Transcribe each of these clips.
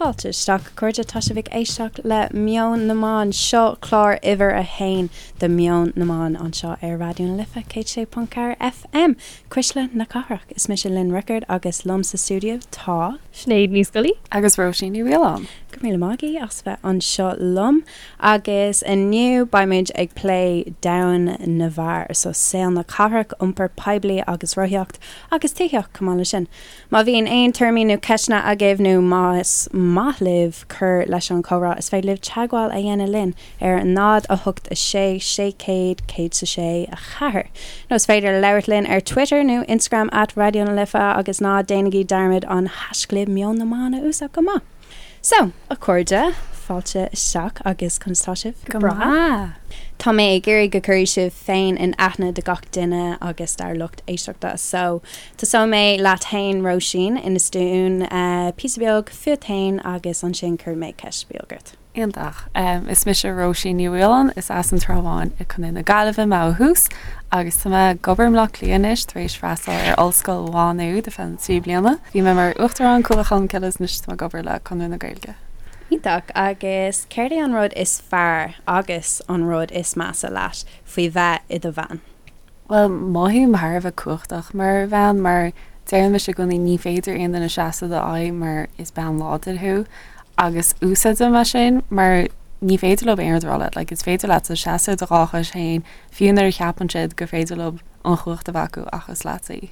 Fáilte isteach, a chairde. Tá sibh ag éisteacht le Meon na mBan. Seo clár uimhir a haon de Meon na mBan anseo ar Raidió na Life 106.4 FM, Cuisle na Cathrach. Is mise Lynn Rickard agus liom sa stiúideo tá. Sinéad Ní Scolaí. Agus Róisín Ní Mhaoláin. Go raibh míle maith agaibh as bheith anseo liom. Agus inniu beimid ag plé domhan na bhfear, so saol na cathrach, iompar poiblí agus rothaíocht agus tithíocht chomh maith leis sin. Má bhíonn aon tuairimí nó ceisteanna agaibh nó más maith libh cur leis an chomhrá is féidir libh teagmháil a dhéanamh linn ar 0 8 6 600 106 4 nó is féidir labhairt linn ar Twitter nó Instagram at Raidió na Life agus ná déanaigí dearmad an haischlib Meon na mBan a úsáid chomh maith. So, a chairde, fáilte isteach agus conas tá sibh? Go breá! Tá mé ag iarraidh go gcuirfidh sibh féin in aithne do gach duine agus dár lucht éisteachta. So, tosóidh mé leat fhéin Róisín, inis dúinn píosa beag fút fhéin agus ansin cuirfidh mé ceist beag ort. Iontach. Is mise Róisín Ní Mhaoláin, is as an Trá Bháin i Contae na Gaillimhe mé ó thús agus tá mé ag obair i mBleá Cliath anois tar éis freastal ar Ollscoil Mhá Nuad ar feadh na 3 bliana. Bhí mé mar Uachtarán Cuallacht Cholmcille agus anois tá mé ag obair le Conradh na Gaeilge. Iontach. Agus céard é an rud is fearr agus an rud is measa leat faoi bheith i do bhean? Bhuel, mothaím thar a bheith cumhachtach mar bhean mar deireann mise i gcónaí ní féidir aon duine seasamh i d'aghaidh mar is bean láidir thú agus úsáidim é sin mar ní féidir leo aon rud a rá leat, like is féidir leatsa seasamh ar do dhá chois féin fiú nuair a cheapann siad gur féidir leo an chumhacht a bheith acu ach is leatsa í.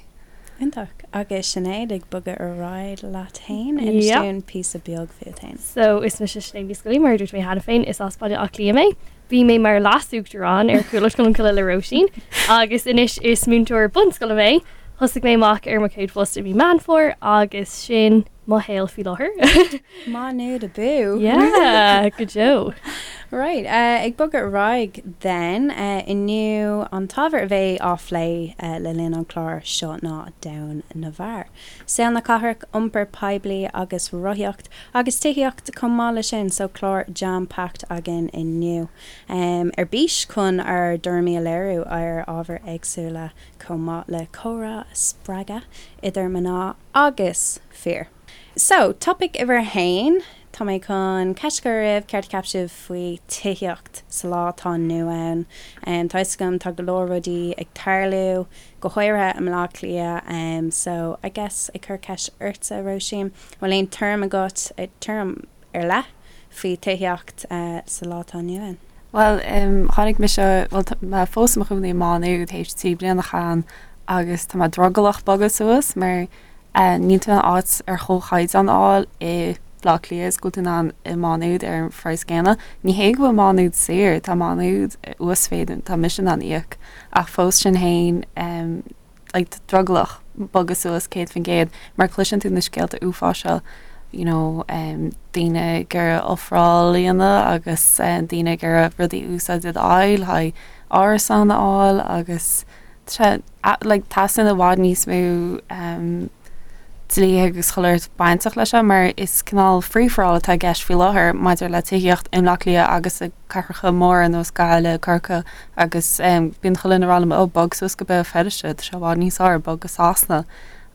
Iontach. Agus Sinéad, ag bogadh ar aghaidh leat féin, inis dúinn píosa beag fút féin. So, is mise Sinéad Ní Scolaí, mar a dúirt mé cheana féin, is as Baile Átha Cliath mé. Bhí mé mar leas-uachtarán ar Chuallacht Cholmcille le Róisín agus anois is múinteoir bunscoile mé. Thosaigh mé amach ar mo chéad phost i mí Meán Fómhair agus sin mo shaol faoi láthair. Má Nuad abú! Yeah, go deo. Right, ag bogadh ar aghaidh then, inniu an t-ábhar a bheidh á phlé le linn an chláir seo ná domhan na bhfear. Saol na cathrach, iompar poiblí agus rothaíocht, agus tithíocht chomh maith le sin, so clár jam packed againn inniu. Ar bís chun ár dtuairimí a léiriú ar ábhair éagsúla chomh maith le comhrá a spreagadh idir mná agus fir. So, topaic uimhir a haon, tá mé chun ceist a chur oraibh, céard a cheap sibh faoi tithíocht sa lá atá inniu ann? Tá 'fhios agam tá go leor rudaí ag tarlú, go háirithe i mBleá Cliath, so I guess ag cur ceist ortsa, Róisín, bhfuil aon tuairim agat, tuairim ar leith faoi tithíocht sa lá atá inniu ann? Bhuel, tháinig mise, bhuel tá mé fós i mo chónaí i Má Nuad théis 3 bliana a chaitheamh ann agus tá mé drogallach bogadh suas mar níl tú in ann áit ar chomhchaighdeán a fháil i Bleá Cliath is go bhfuil tú in ann i Má Nuad ar an phraghas céanna. Ní hé go bhfuil Má Nuad saor, tá Má Nuad uasmhéid tá mise in ann íoc ach fós sin féin like drogallach bogadh suas 100% mar cloiseann tú na scéalta uafáis seo you know daoine ag iarraidh ofráil a dhéanamh agus daoine ag iarraidh rudaí a úsáid i d'aghaidh le haghaidh árasán a fháil agus like teastaíonn i bhfad níos mó dlíthe agus chuile shórt bainteach leis seo mar is cineál free for all atá i gceist faoi láthair maidir le tithíocht i mBleá Cliath agus i cathracha móra ar nós Gaillimh, Corcaigh agus bíonn chuile dhuine ag rá liom oh bog suas go Béal Feirste, tá sé i bhfad níos fearr, bog go Sasana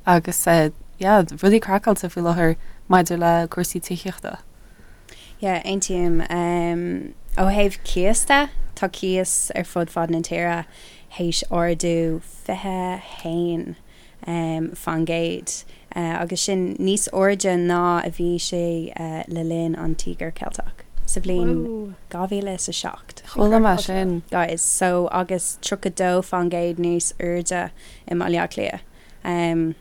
agus yeah rudaí craiceáilte faoi láthair maidir le cúrsaí tithíochta. Yeah, aontaím. Ó thaobh cíos de, tá cíos ar fud fad na tíre théis ardú 21 faoin gcéad, agus sin níos airde ná a bhí sé le linn an Tíogar Ceilteach sa bhliain 2007. Chuala mé sin. Guys, so agus 32% níos airde i mBaile Átha Cliath.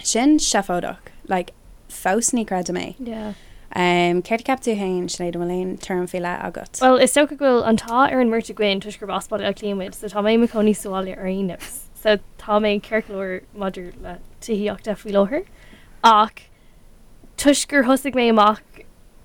Sin seafóideach. Like, fós ní chreidim é. Yeah. Céard a cheap tú féin, Sinéad, an bhfuil aon tuairim faoi leith agat? Bhuel, is dócha go bhfuil an t-ádh ar an mbeirt againn toisc gurb as Baile Átha Cliath muid, so tá mé i mo chónaí sa bhaile ar aon nós. So tá mé ceart go leor maidir le tithíocht de faoi láthair ach toisc gur thosaigh mé amach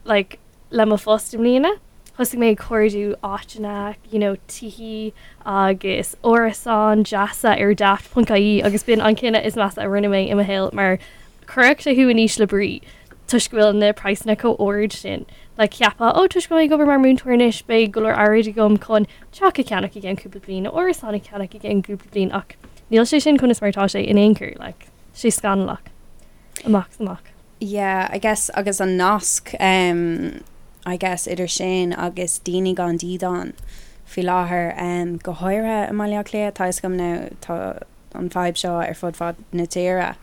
like le mo phost i mbliana, thosaigh mé ag cuardú áiteanna, you know, tithí agus árasáin deasa ar Daft.ie agus b'in an cinneadh is measa a rinne mé i mo shaol mar chuirfeadh sé thú in ísle brí toisc go bhfuil na praghsanna chomh ard sin. Like cheapfá, oh toisc go bhfuil mé ag obair mar mhúinteoir anois beidh go leor airgid agam chun teach a cheannach i gceann cúpla bliain nó árasán a cheannach i gceann cúpla bliain ach níl sé sin conas mar atá sé in aon chor, like, sé scannalach amach is amach. Yeah, I guess agus an nasc um, I guess idir sin agus daoine gan dídean faoi láthair um, go háirithe i mBaile Átha Cliath, tá a fhios agam now tá an fadhb seo ar fud fad na tíre.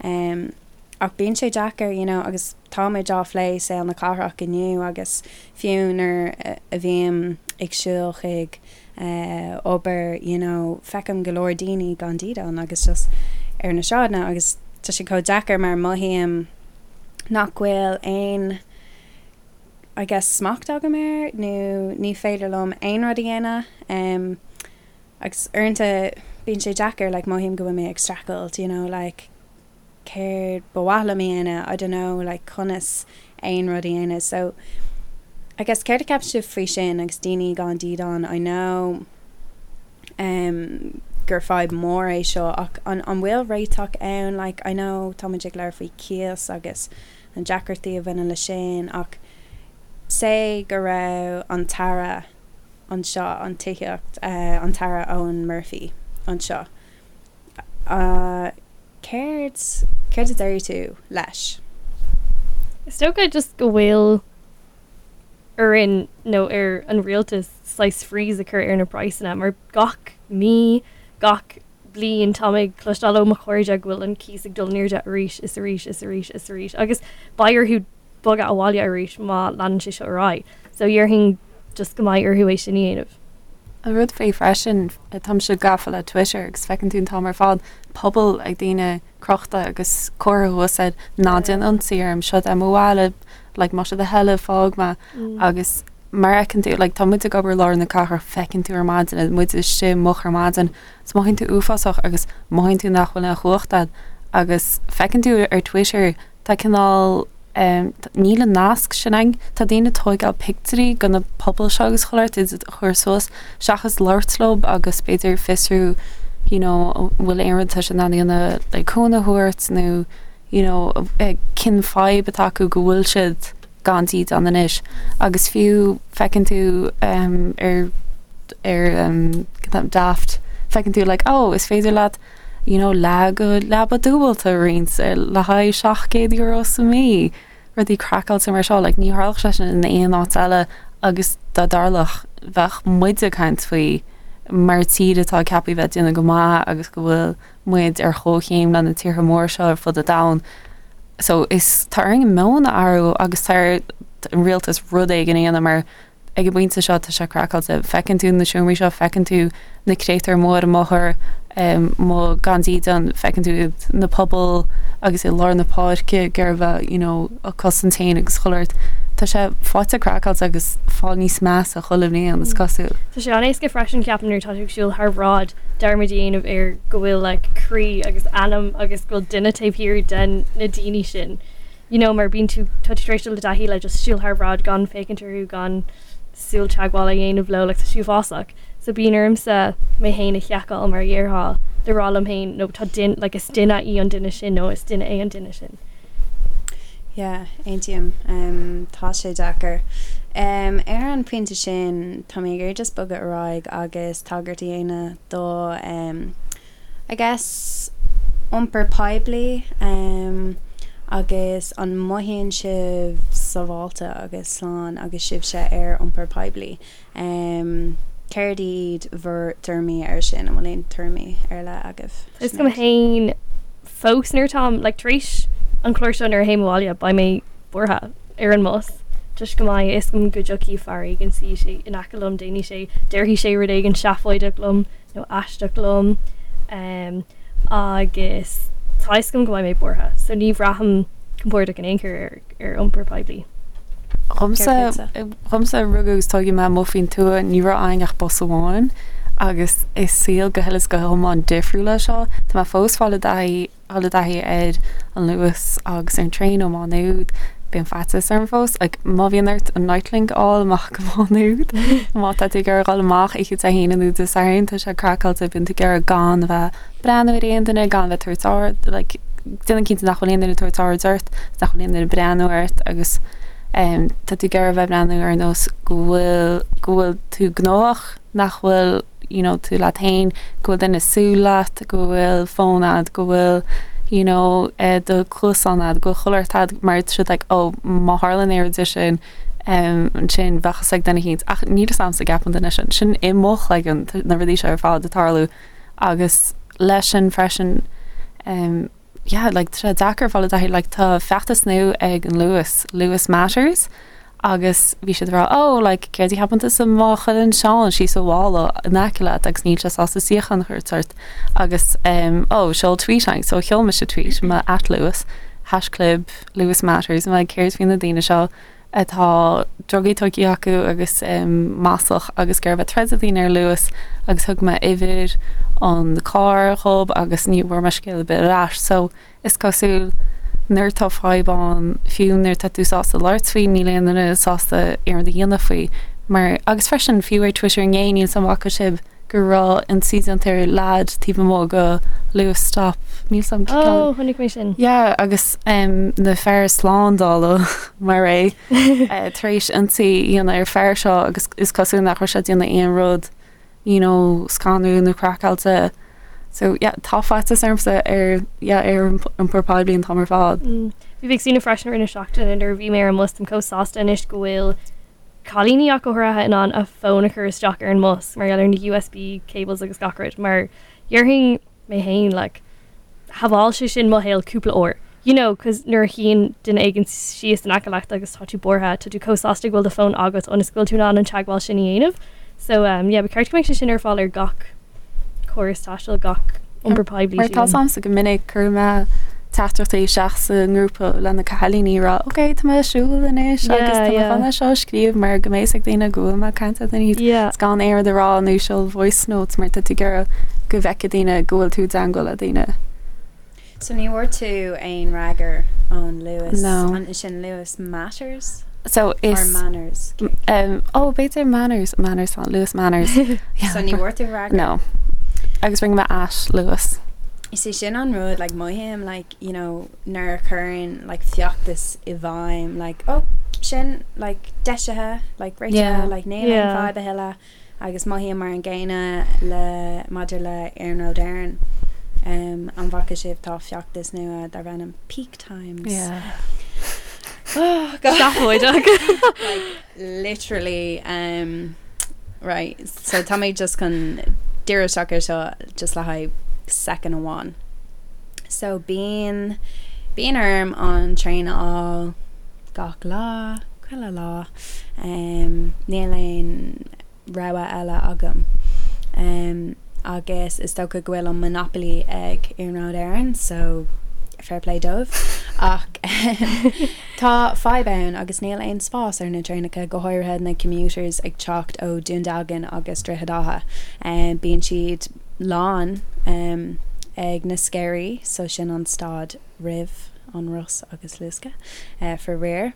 Um, ach bíonn sé deacair, you know, agus tá muid á phlé saol na cathrach inniu agus fiú nuair a bhím ag siúl chuig eh, obair, you know, feicim go leor daoine gan dídean agus just ar na sráideanna agus tá sé chomh deacair mar mothaím nach bhfuil aon I guess smacht agam air nó ní féidir liom aon rud a dhéanamh um, agus uaireanta bíonn sé deacair like mothaím go bhfuil mé ag streachailt you know like céard ba mhaith liom a dhéanamh, I don't know, like conas aon rud a dhéanamh. So, I guess céard a cheapann sibh faoi sin agus daoine gan dídean, I know um, gur fadhb mór é seo ach an, an bhfuil réiteach ann, like I know tá muid ag labhairt faoi cíos agus na deacrachtaí a bhaineann le sin ach say go raibh an tAire anseo, an tithíocht, uh, an tAire Eoghan Murphy anseo. Uh, Céard, céard a déarfaidh tú leis? Is dócha just go bhfuil orainn nó ar an rialtas saghas freeze a chur ar na praghsanna mar gach mí, gach bliain tá mé ag cloisteáil ó mo chairde go bhfuil an cíos ag dul in airde arís is arís is arís is arís agus beidh orthu bogadh abhaile arís má leanann sé seo ar aghaidh. So dhéarfainn just go mbeidh orthu é sin a dhéanamh. An rud faoi freisin, táimse gafa le Twitter agus feiceann tú an t-am ar fad puball ag daoine crochta agus comhartha thuas air ná déan ionsaí orm, seo é mo bhaile, like más é do thoil é fág mé agus mar fheiceann tú, like tá muid ag obair i lár na cathrach, feiceann tú ar maidin, muid istigh moch ar maidin, is mothaíonn tú uafásach agus mothaíonn tú nach bhfuil aon chumhacht agat agus feiceann tú ar Twitter tá cineál níl an nasc sin ann. Tá daoine ag tóigeáil pictiúirí de na pubaill seo agus chuile shórt iad a chur suas seachas labhairt leo agus b'fhéidir fiosrú you know an bhfuil aon rud atá siad in ann a dhéanamh le cúnamh a thabhairt nó you know cén fadhb atá acu go bhfuil siad gan dídean anois agus fiú feiceann tú ar ar Daft feiceann tú like oh is féidir leat you know leath de leaba dúbailte a roinnt le haghaidh €700 sa mhí, rudaí craiceáilte mar seo, like ní tharlódh sé sin in aon áit eile agus dá dtarlódh bheadh muid ag caint faoi mar tír atá ceaptha bheith ag déanamh go maith agus go bhfuil muid ar chomhchéim le na tíortha móra seo ar fud an domhain. So is tá orainn meon a athrú agus tá ar an rialtas rud éigin a dhéanamh mar ag an bpointe seo tá sé craiceáilte. Feiceann tú na seomraí seo, feiceann tú na créatúir amuigh ar an mbóthar, amuigh gan dídean, feiceann tú iad na pubaill agus i lár na páirce ag iarraidh a bheith you know ag cosaint féin agus chuile shórt. Tá sé faighte craiceáilte agus fáil níos measa chuile bhliain is cosúil. Tá sé an-éasca freisin ceapaim nuair atá tú ag siúl thar bhráid dearmad a dhéanamh ar go bhfuil like croí agus anam agus go bhfuil duine taobh thiar den na daoine sin. You know mar bíonn tú, tá tú tar éis dul i dtaithí le just siúl thar bhráid gan féachaint orthu, gan súil teagmháil a dhéanamh leo, like tá sé uafásach. So bíonn ormsa mé féin a sheiceáil mar a dhéarfá le rá liom féin no tá duine, like is duine í an duine sin nó is duine é an duine sin. Yeah, aontaím. Um, tá sé deacair. Um, ar an pointe sin, tá mé ag iarraidh just bogadh ar aghaidh agus tagairt a dhéanamh do um, I guess, iompar poiblí agus an mothaíonn sibh sábháilte agus slán agus sibhse ar iompar poiblí? Céard iad bhur dtuairimí air sin? An bhfuil aon tuairimí ar leith agaibh? Is dóigh liom féin fós nuair atáim like tar éis an chlár seo nuair a théim abhaile beidh mé buartha ar an mbus toisc go mbeidh a fhios agam go dtiocfaidh fear éigin suífidh sé in aice liom déanfaidh sé déarfaidh sé rud éigin seafóideach liom nó aisteach liom agus tá a fhios agam go mbeidh mé buartha so ní bhraithim compordach in aon chor ar ar iompar poiblí. Dhomsa, dhomsa rugadh agus tógadh mé amuigh faoin tuath, ní raibh againn ach bus amháin agus is saol go huile is go hiomlán difriúil é seo. Tá mé fós fáil i dtaithí dul i dtaithí ar an Luas agus ar an traein ó Má Nuad, bíonn faitíos orm fós. Like, má bhíonn ort an Nitelink a fháil amach go Má Nuad, má tá tú ag iarraidh dhul amach oíche Dé hAoine nó Dé Sathairn, tá sé craiceáilte, bíonn tú ag iarraidh gan a bheith breathnú ar aon duine, gan a bheith tabhairt aird, like, déanamh cinnte nach bhfuil aon duine ag tabhairt aird ort, nach bhfuil aon duine ag breathnú ort agus um, tá tú ag iarraidh a bheith breathnú ar nós go bhfuil go bhfuil tú gnóthach, nach bhfuil you know, tú leat féin, go bhfuil duine ag súil leat, go bhfuil fón agat, go bhfuil, you know do chluasáin a'd, go bhfuil chuile shórt a'd mar tá siad like oh má tharlaíonn aon rud de sin ansin bheadh fhios ag duine éicint ach níl fhios a'msa an gceapann duine sin, sin i mo chloigeann na rudaí seo ar fad ag tarlú agus leis sin freisin yeah like tá sé deacair fáil i dtaithí like tá feachtas nua ag an Luas, Luas Matters agus bhí siad ag rá oh like céard a cheapann tusa má chailleann Seán síos a mhála in aice leat agus níl sé sásta suíochán a thabhairt ort agus um, oh seol tweet chugainn so sheol mise tweet mo at Luas haischlib Luas Matters like céard faoi na daoine seo atá drugaí tógtha acu agus um, maslach agus ag iarraidh a bheith troid le daoine ar Luas agus thug mé uimhir an carr dhób agus ní bhfuair mé scéal ar bith ar ais so Is cosúil nuair atá fadhb ann, fiú nuair atá tú sásta labhairt faoi, níl aon duine sásta aon rud a dhéanamh faoi. Mar, agus freisin, fiú ar Twitter inné, níl 's a'm an bhfaca sibh go raibh ionsaí déanta ar leaid taobh amuigh go Luas stop, níl 's a'm cén ceann. Oh, chonaic mé sin. Yeah, agus um, na fear slándála mar é tar éis ionsaí a dhéanamh ar fear seo agus is cosúil nach raibh sé ag déanamh aon rud you know, scanrúil nó craiceáilte. So yeah, tá faitíos ormsa ar yeah, ar iompar poiblí an t-am ar fad. Mm. Bhí mé ag smaoineamh freisin i rith na seachtaine nuair a bhí mé ar an mbus, táim chomh sásta anois go bhfuil cailíní ach go háirithe in ann a fón a chur isteach ar an mbus mar gheall ar na USB cables agus gach rud mar dhéarfainn mé féin like shábháil sé sin mo shaol cúpla uair. You know, cos nuair a shuíonn duine éigin síos in aice leat agus tá tú buartha, tá tú chomh sásta go bhfuil do fón agat ionas go bhfuil tú in ann an teagmháil sin a dhéanamh. So um, yeah, ba cheart go mbeadh sé sin ar fáil ar gach córas taistil, gach iompar poiblí. Mar tá 's a'msa go minic cuireann mé teachtaireachtaí isteach sa ngrúpa le na cailíní ag rá ok tá mé ag siúl anois agus tá mé chun é seo a scríobh mar go mbeidh fhios ag daoine go bhfuil mé ag caint le daoine is gan aon rud a rá nó seol voice notes mar tá tú ag iarraidh go bhfeicfidh daoine go bhfuil tú i dteangmháil le daoine. So ní bhfuair tú aon fhreagra ón Luas? No. An sin Luas Matters? So is Or Manners? Um, oh, b'fhéidir Manners, Manners, Luas Manners. Yeah. So ní bhfuair tú freagra? No. Agus rinne mé at Luas. Is é sin an rud, like, mothaím, like, you know, nuair a chuireann, like, feachtas i bhfeidhm, like, oh, sin, like, deisithe, like, réitithe, Yeah. like, níl aon Yeah. fadhb a thuilleadh. Agus mothaím mar an gcéanna le maidir le Iarnród Éireann. Um, an bhfaca sibh tá feachtas nua darb ainm Peak Times. Yeah. Oh, God. Seafóideach. Like, literally, um, right, so tá mé just chun díriú isteach ar seo just le haghaidh second amháin. So bíonn, bíonn orm an traein a fháil gach lá, chuile lá. Níl aon rogha eile agam. Agus is dócha go bhfuil an monopoly ag Iarnród Éireann so fair play dóibh. Ach tá fadhb ann agus níl aon spás ar na traenacha, go háirithe na commuters ag teacht ó Dún Dealgan agus Droichead Átha. Bíonn siad lán ag na Sceirí so sin an stad roimh an Ros agus Lusca, faraor.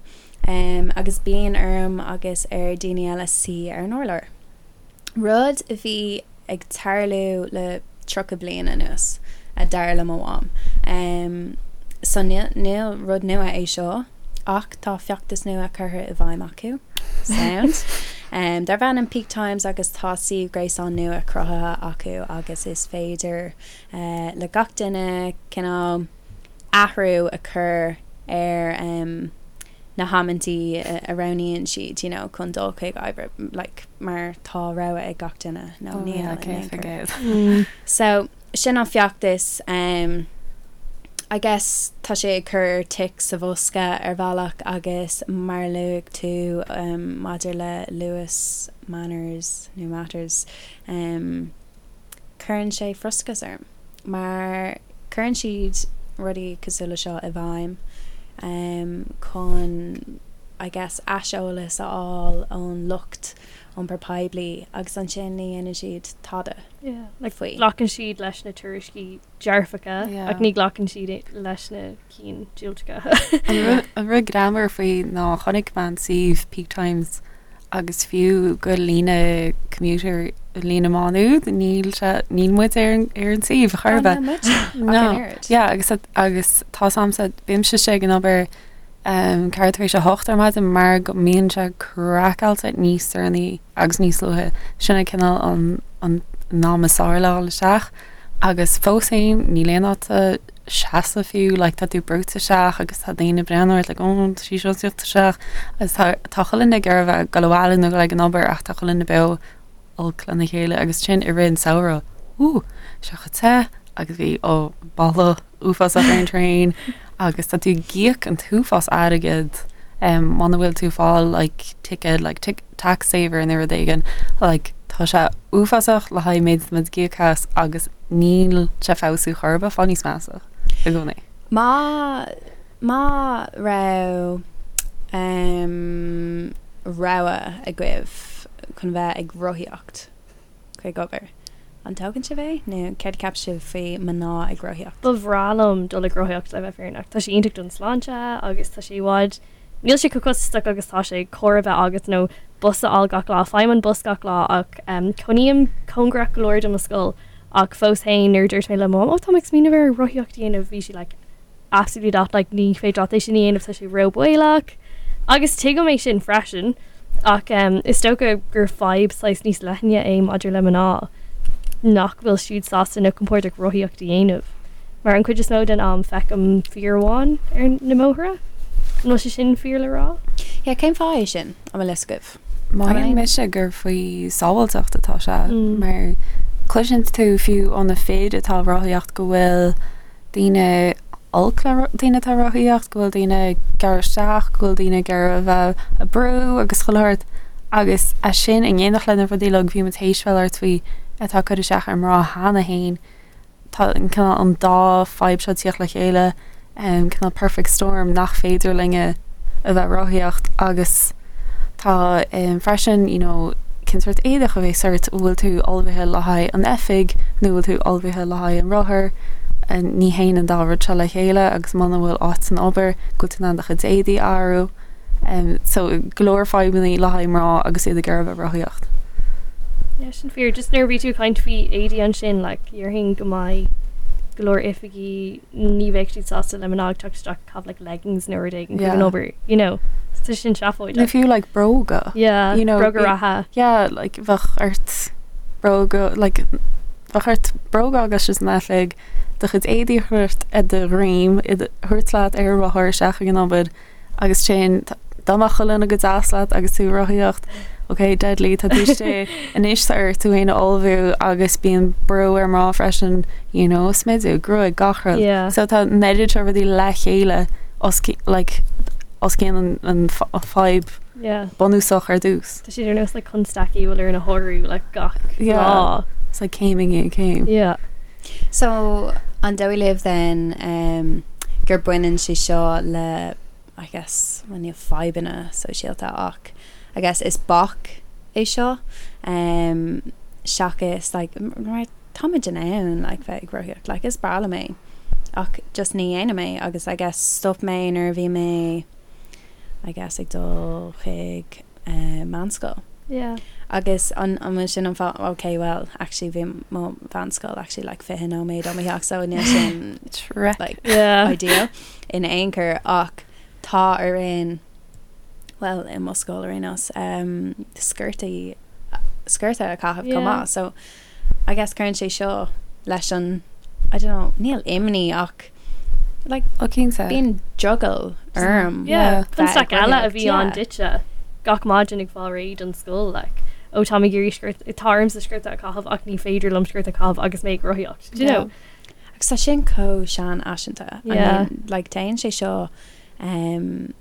Agus bíonn orm agus ar daoine eile suí ar an urlár. Rud a bhí ag tarlú le 30 bliain anuas, a dar le mo mham. So níl rud nua é seo, ach tá feachtas nua curtha i bhfeidhm acu. Sound. Darb ainm Peak Times agus tá suíomh gréasáin nua cruthaithe acu agus is féidir le gach duine cineál athrú a chur ar na hamantaí a roghnaíonn siad you know chun dul chuig oibre like mar tá rogha ag gach duine nó Oh níl yeah, in aon chor. 100%. So sin an feachtas um, I guess tá sé ag cur tic sa bhosca ar bhealach agus mar a luaigh tú um, maidir le Luas Manners nó Matters um, cuireann sé frustrachas orm mar cuireann siad rudaí cosúil le seo i bhfeidhm chun I guess aiseolas a fháil ón lucht iompar poiblí agus ansin ní dhéanann siad tada Yeah, like faoi. glacann siad leis na tuairiscí dearfacha Yeah. ach ní ghlacann siad leis na cinn diúltacha. An rud greannmhar faoi ná chonaic mé an suíomh Peak Times agus fiú go líne commuter líne Má Nuad níl sé níl muid ar an ar an suíomh chor ar Oh, bith. níl muid ach No. an oiread. Yeah, agus agus tá 's a'msa bímse istigh ag an obair um, ceathrú tar éis a hocht ar maidin mar go mbíonn sé craiceáilte níos deireanaí agus níos luaithe. Sin é cineál an an an am is fearr le dhul isteach agus fós féin níl aon áit sa. seasamh fiú, like tá tú brúite isteach agus tá daoine ag breathnú ort like oh tá sí seo ag tíocht isteach agus tá tá chuile dhuine ag iarraidh a bheith ag dul abhaile nó ag an obair ach tá chuile dhuine beo olc lena chéile agus sin i rith an samhradh ooh sé chomh te agus bhí ó boladh uafásach ar an traein agus tá tú ag íoc an t-uafás airgead um, muna bhfuil tú fáil like ticket like tic tax saver nó rud éigin like tá sé uafásach le haghaidh méid muid ag íoc as agus níl sé feabhsú chor ar bith fáil níos measa i gcónaí. Má má raibh um, rogha agaibh chun bheith ag rothaíocht chuig obair, an dtógann sibh é nó céard a cheap sibh faoi mná ag rothaíocht? Ba bhreá liom dul ag rothaíocht le bheith fírinneach. Tá sé iontach don sláinte agus tá sé i bhfad Níl sé chomh costasach agus tá sé carr a bheith agat nó bus a fháil gach lá. Faighim an bus gach lá ach cónaím cóngarach go leor do mo scoil ach fós féin nuair a dúirt mé le mo mham, 'Ó tá mé ag smaoineamh ar rothaíocht a dhéanamh' bhí sí like 'absolutely not like ní féidir leat é sin a dhéanamh tá sé róbhaolach' agus tuigim é sin freisin ach is dócha gur fadhb saghas níos leithne é maidir le mná nach bhfuil siad sásta nó compordach rothaíocht a dhéanamh. Mar an chuid is mó den am feicim fir amháin ar na mbóithre. An bhfuil sé sin fíor le rá? Yeah, cén fáth é sin? An bhfuil fhios agaibh? Mothaíonn mise gur faoi sábháilteacht atá sé mar cloiseann tú fiú ó na fir atá ag rothaíocht go bhfuil daoine olc le daoine atá ag rothaíocht, go bhfuil daoine ag gearradh isteach, go bhfuil daoine ag iarraidh a bheith ag brú agus chuile shórt agus é sin in éineacht le na rudaí uilig bhí muid théis bheith ag labhairt faoi atá ag cur isteach ar mná cheana féin. Tá an cineál an dá fadhb seo ag tíocht le chéile, cineál perfect storm nach féidir linne a bheith rothaíocht agus tá freisin you know cén sórt éadach a bheas ort, an bhfuil tú ullmhaithe le haghaidh an oifig nó bhfuil tú ullmhaithe le haghaidh an rothar, ní théann an dá rud seo le chéile agus muna bhfuil áit san obair go bhfuil tú in ann do chuid éadaí a athrú. So go leor fadhbanna le haghaidh mná agus iad ag iarraidh a bheith rothaíocht. Yeah, sin fíor. Just nuair a bhí tú ag caint faoi éadaí ansin, like, dhéarfainn go mbeidh go leor oifigí ní bheadh siad sásta le mná ag teacht isteach ag caitheamh like leggings nó rud éigin chuig an obair, you know. So sin seafóideach. Nó fiú like bróga. Yeah, you know, bróga reatha. Yeah, like bheadh ort bróga, like bheadh ort bróga agus sin san oifig, do chuid éadaí a thabhairt ar do dhroim, iad a thabhairt leat ar an rothar isteach ag an obair. Agus sin, dá mbeadh chuile dhuine go deas leat agus tú ag rothaíocht, ok, deadly, tá tú istigh, anois tá ort tú féin a ullmhú agus bíonn brú ar mná freisin, you know, smideadh, gruaig, gach rud. Yeah. So tá an oiread seo rudaí le chéile os like, os cionn an, an fadhb yeah. bunúsach ar dtús. Tá siad ar nós like constaicí a bhfuil orainn a shárú like gach yeah. lá. It's like céim i ndiaidh céim. Yeah. So, an dóigh libh then um, gur baineann sé seo le I guess, well, níl fadhbanna sóisialta ach I guess is bac é seo um, seachas like, mar táimid in ann like, bheith ag rothaíocht like, is breá liom é ach just ní dhéanaim é agus I guess stop mé nuair a bhí mé I guess ag dul chuig meánscoil. Yeah. Agus an an bhfuil sin an fáth ok well actually bhí mo mheánscoil actually like 20 nóiméad ó mo theach so níl sin like yeah. ideal in aon chor ach tá orainn well i mo scoil ar aon nós um, sciortaí sciorta a chaitheamh chomh Yeah. maith so I guess cuireann sé seo leis an I don't know níl imní ach like Ó cinnte. bíonn drogall orm. Yeah, bheith ag constaic eile a rothaíocht, bhí ann yeah. duitse gach maidin ag fáil réidh don scoil like ó tá mé ag iarraidh sciort tá ormsa sciorta a chaitheamh ach ní féidir liom sciorta a chaitheamh agus mé ag rothaíocht do you know? Agus tá sin chomh seanfhaiseanta. I Yeah. mean, like téann sé seo um,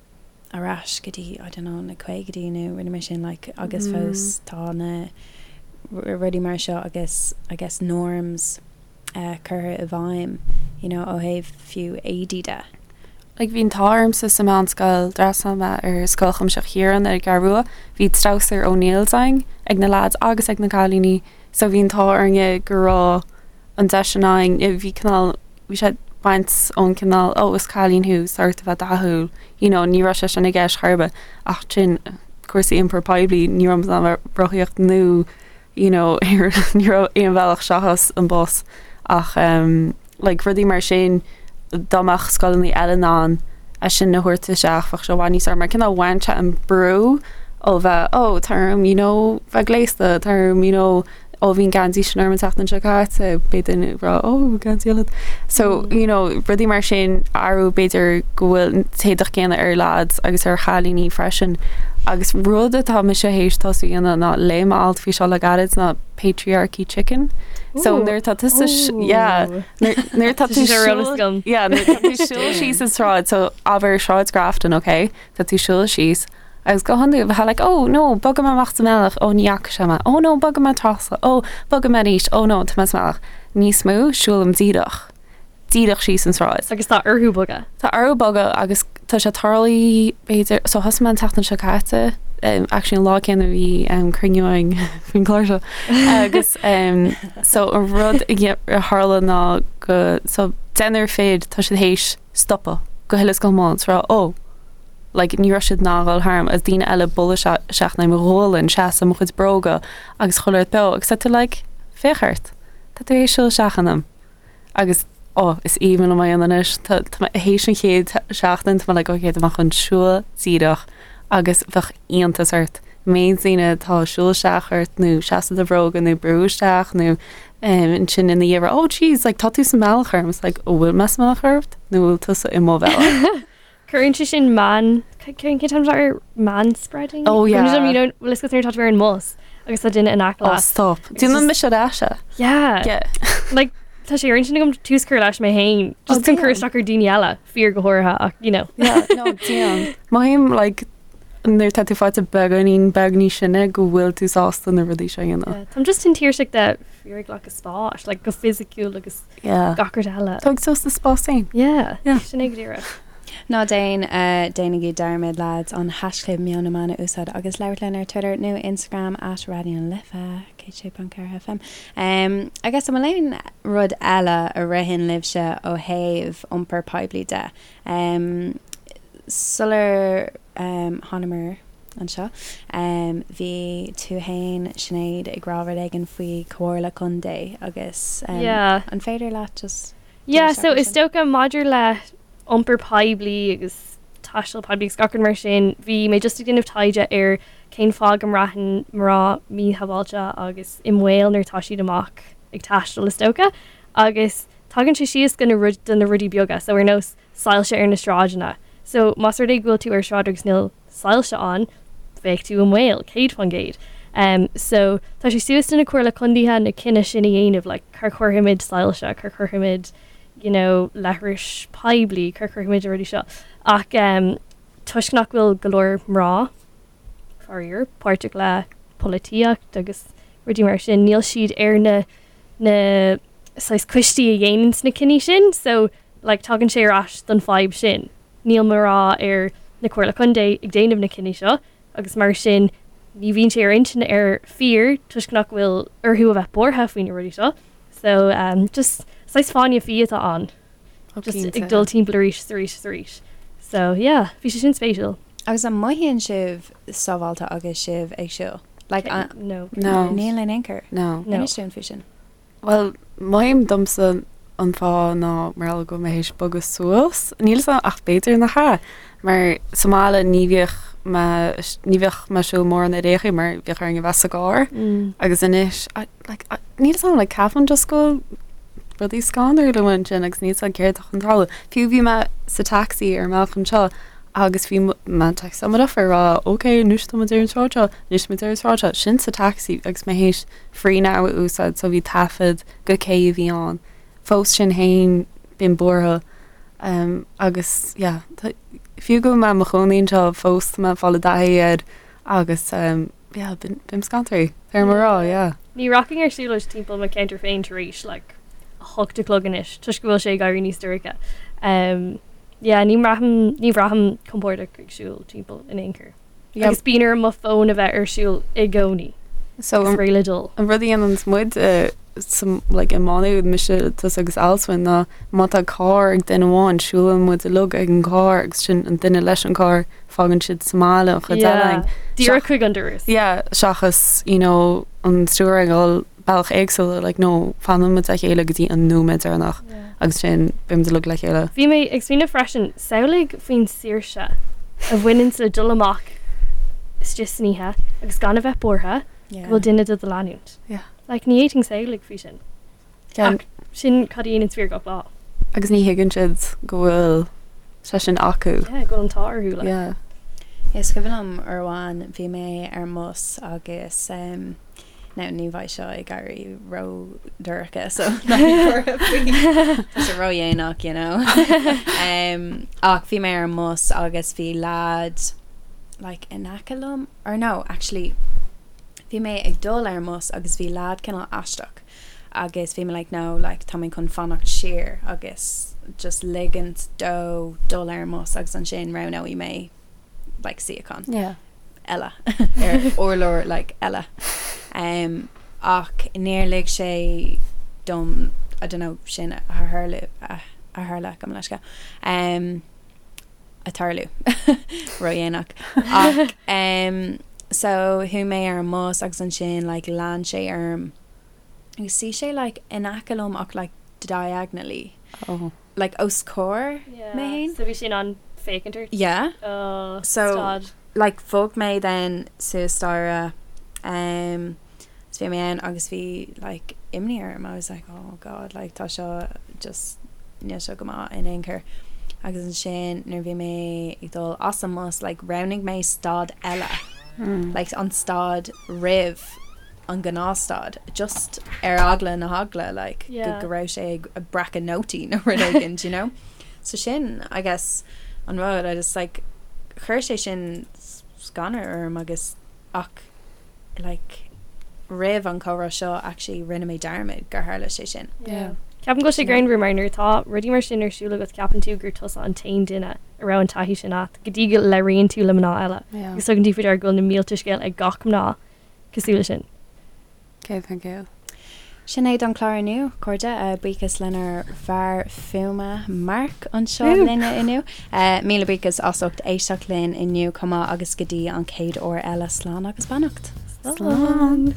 ar ais go dtí, I don't know, na caogaidí nó rudaí mar sin like agus fós tá na rudaí mar seo agus I guess norms eh, curtha i bhfeidhm, you know, ó thaobh fiú éadaí de. Like bhí an t-ádh ormsa sa mheánscoil, d'fhreastail mé ar Scoil Chuimsitheach Chiaráin ar an gCeathrú Rua, bhí treabhsar O'Neills againn ag na lads agus ag na cailíní so bhí an t-ádh orainne go raibh an deis sin againn, bhí cineál, bhí sé ag baint ón cineál oh is cailín thú, tá ort a bheith dathúil, you know, ní raibh sé sin i gceist chor ar bith ach sin cúrsaí iompar poiblí, ní raibh muid in ann bheith rothaíocht nó you know ní raibh aon bhealach seachas an bus ach um, like rudaí mar sin dá mbeadh scoileanna eile in ann é sin a thabhairt isteach bheadh sé i bhfad níos fearr mar cineál bhain sé an brú ó bheith oh tá orm you know bheith gléasta tá orm you know. Ó bhí an geansaí sin orm an tseachtain seo caite, beidh duine ag rá ó geansaí eile. So, you know, rudaí mar sin athrú b'fhéidir go bhfuil an t-éadach céanna ar lads agus ar chailíní freisin. Agus rud atá mise théis tosú a dhéanamh ná léigh mé alt faoi seo le gairid ná patriarchy chicken. So nuair atá tusa yeah, nuair atá tú siúl yeah, nuair atá tú siúl síos an sráid, so abair Sráid Grafton, okay? Tá tú siúl síos Agus go hiondúil bheifeá like oh no, bogfaidh mé amach sa mbealach, oh ní fhaca sé mé, oh no, bogfaidh mé trasna, oh bogfaidh mé arís, oh no, tá mé sa mbealach. Níos mó, siúlaim díreach, díreach síos an tsráid. Agus tá orthu bogadh. Tá orthu bogadh agus tá sé tarlaithe b'fhéidir, so thosaigh mé an tseachtain seo caite, um, actually an lá céanna a bhí um, cruinniú againn faoin gclár seo. Agus um, so an rud a a tharla ná go, so deichniúr fir, tá siad théis stopadh go huile is go hiomlán, is rá, oh, like ní raibh siad in ann dhul tharm agus daoine eile bualadh isteach i mo ghualainn, seasamh i mo chuid bróga agus chuile rud beo agus tá tú like féach ort, tá tú théis siúl isteach ionam agus oh is aoibhinn liom é a dhéanamh anois, tá tá mé théis an chéad seachtain tá mé like ok tá mé chun siúl díreach agus bheadh iontas ort méid daoine atá ag siúl isteach ort nó seasamh i do bhróga nó brú isteach nó um, ansin ina dhiaidh oh jeez like tá tú sa mbealach orm it's like oh bhfuil mé sa mbealach ort nó bhfuil tusa i mo bhealach. Cuireann sé sin man cén t-ainm ar manspreading? Oh yeah. You know, bhfuil a fhios agat nuair atá tú ar an mbus agus tá duine in aice leat. Oh stop. Déanann mise ar ais é. Yeah. Yeah. Like tá sé ar intinn agam tús cur leis mé féin just chun cur isteach ar daoine eile, fir go háirithe ach you know. Yeah, no, déan. Mothaím like nuair tá tú faighte beagáinín beag níos sine go bhfuil tú sásta na rudaí seo a dhéanamh. Yeah, Táim just tinn tuirseach de fir ag glacadh spáis, like go fisiciúil agus Yeah. gach rud eile. Tóg suas do spás féin. Yeah, Yeah. sin é go díreach. Ná déan, déanaigí dearmad lads an haischlib Meon na Meán a úsáid agus labhairt linn ar Twitter nó Instagram at Raidió na Life 106.4 FM. Agus an bhfuil aon rud eile a ritheann libhse ó thaobh iompar poiblí de? Sular thánamar anseo, bhí tú fhéin, Sinéad, ag rá rud éigin faoi Comhairle Contae agus an féidir leat just Yeah, so is dócha maidir le iompar poiblí agus taisteal poiblí agus gach rud mar sin, bhí mé just ag déanamh taighde ar cén fáth go mbraitheann mná míshábháilte agus i mbaol nuair atá siad amach ag taisteal is dócha agus tagann sé síos go na rud do na rudaí beaga so ar nós soilse ar na sráideanna. So más rud é go bhfuil tú ar sráid agus níl soilse ann, bheadh tú i mbaol, 100%. Um, so tá sé suas do na comhairle contaetha na cinneadh sin a dhéanamh, like, cá chuirfimid soilse, cá chuirfimid, you know, leithris poiblí, cá chuirfimid na rudaí seo. Ach um, toisc nach bhfuil go leor mná, faraor, páirteach le polaitíocht agus rudaí mar sin, níl siad ar na na saghas coistí a dhéananns na cinní sin so like tagann sé ar ais don fadhb sin. Níl mná ar na Comhairle Contae ag déanamh na cinní seo agus mar sin ní bhíonn sé ar intinn ar fir toisc nach bhfuil orthu a bheith buartha faoi na rudaí seo. So um, just saghas fáinne fí atá ann. Oh, Just cinnte. ag dul timpeall arís is arís is arís. So yeah, bhí sé sin spéisiúil. Agus an mothaíonn sibh sábháilte agus sibh ag siúl? Like, an, no. No. Níl in aon chor. No. No. Inis dúinn faoi sin. Bhuel, mothaím domsa an fáth ná mar gheall go bhfuil mé théis bogadh suas. Níl 'fhios a'm ach b'fhéidir nach ea. Mar sa mbaile ní bhíodh mé, ní bheadh mé ag siúl mórán ar aon chaoi mar bhíodh orainn a bheith sa gcarr. Agus anois, I, like, I, níl 'fhios a'm, like, ceapaim just go bhfuil rudaí scanrúil amuigh ansin agus níl 'fhios a'm céard atá chun tarlú. Fiú bhí mé sa taxi ar an mbealach anseo agus bhí mé taxi á mo ag rá ok anois tá muid ar an tsráid seo, anois tá muid ar an tsráid seo, sin sa taxi agus mé théis Free Now a úsáid so bhí taifead go cé a bhí ann. Fós sin fhéin bím buartha um, agus yeah, tá, fiú go bhfuil mé i mo chónaí anseo fós tá mé ag fáil i dtaithí air agus um, yeah, bím, bím scanraithe, ar mo rá, yeah. Ní rachainn ar siúlóid timpeall mo cheantar féin tar éis like, a hocht a chlog anois toisc go bhfuil sé ag éirí níos dorcha. Um, yeah, ní mbraithim, ní bhraithim compordach ag siúl timpeall in aon chor. Yeah. Agus bíonn orm mo fón a bheith ar siúl i gcónaí. So Is réidh le dul. an rud a dhéananns muid uh, sa, like, i Má Nuad, mise, tusa agus Alswyn ná má tá carr ag duine amháin, siúlann muid uilig ag an gcarr agus sin an duine leis an gcarr fágann siad sa mbaile an chuid eile Yeah. Díreach chuig an doras. Yeah, seachas, you know, an stiúir ag dul bealach éagsúla, like, no, fanann muid le chéile go dtí an nóiméad deireanach agus sin beimid uilig le chéile. Bhí mé ag smaoineamh freisin, samhlaigh faoin saoirse a bhaineann le dul amach istigh san oíche agus gan a bheith buartha go bhfuil duine do do leanúint. Yeah. Like ní fhéadfainn samhlú faoi sin. Ach sin cad a dhéanann fir gach lá. Agus ní thuigeann siad go bhfuil sé sin acu. Yeah, go bhfuil an t-ádh orthu like. Yeah. Is cuimhin liom uair amháin bhí mé ar an mbus agus um, now ní bheidh seo ag éirí ró-dhorcha so ná bí buartha faoi. Tá sé ró-dhéanach, you know. um, ach bhí mé ar an mbus agus bhí lad like in aice liom or no, actually bhí mé ag dul ar an mbus agus bhí lad cineál aisteach agus bhí mé like no like tá mé chun fanacht siar agus just ligint dó dul ar an mbus agus ansin roghnóidh mé like suíochán Yeah. eile ar urlár like eile. Um, ach níor lig sé dom I don't know sin a tharlú a a tharla gabh mo leithscéal. Um, a tarlú ródhéanach ach um, so chuaigh mé ar an mbus agus ansin like lean sé orm agus shuigh sé like in aice liom ach like diagonally Oh. like os comhair Yeah. mé féin. So bhí sé in ann féachaint ort? Yeah. Oh, So- stad. like bhog mé then suas staighre um, so bhí mé ann agus bhí like imní orm I was like oh god like tá seo just níl seo go maith in aon chor agus ansin nuair bhí mé ag dul as an mbus like roghnaigh mé stad eile Mm. like an stad roimh an gnáthstad just ar eagla na heagla like go Yeah. go raibh sé ag breacadh nótaí nó rud éigin do you know so sin I guess an rud I just like chuir sé sin scanradh orm agus ach like roimh an chomhrá seo actually rinne mé dearmad gur tharla sé sin. Yeah. Ceapaim go bhfuil sé greannmhar mar nuair atá rudaí mar sin ar siúl agat ceapann tú gur tusa an t-aon duine a raibh an taithí sin agat go dtí go labhraíonn tú le mná eile Yeah. agus tugann tú faoi deara go bhfuil na mílte scéal ag gach mná cosúil leis sin. 100%. Sin é don chlár inniu, cairde. Buíochas lenár bhfear fuaime Mark anseo linne inniu. Míle buíochas as ucht éisteacht linn inniu chomh maith agus go dtí an chéad uair eile, slán agus beannacht. Slán.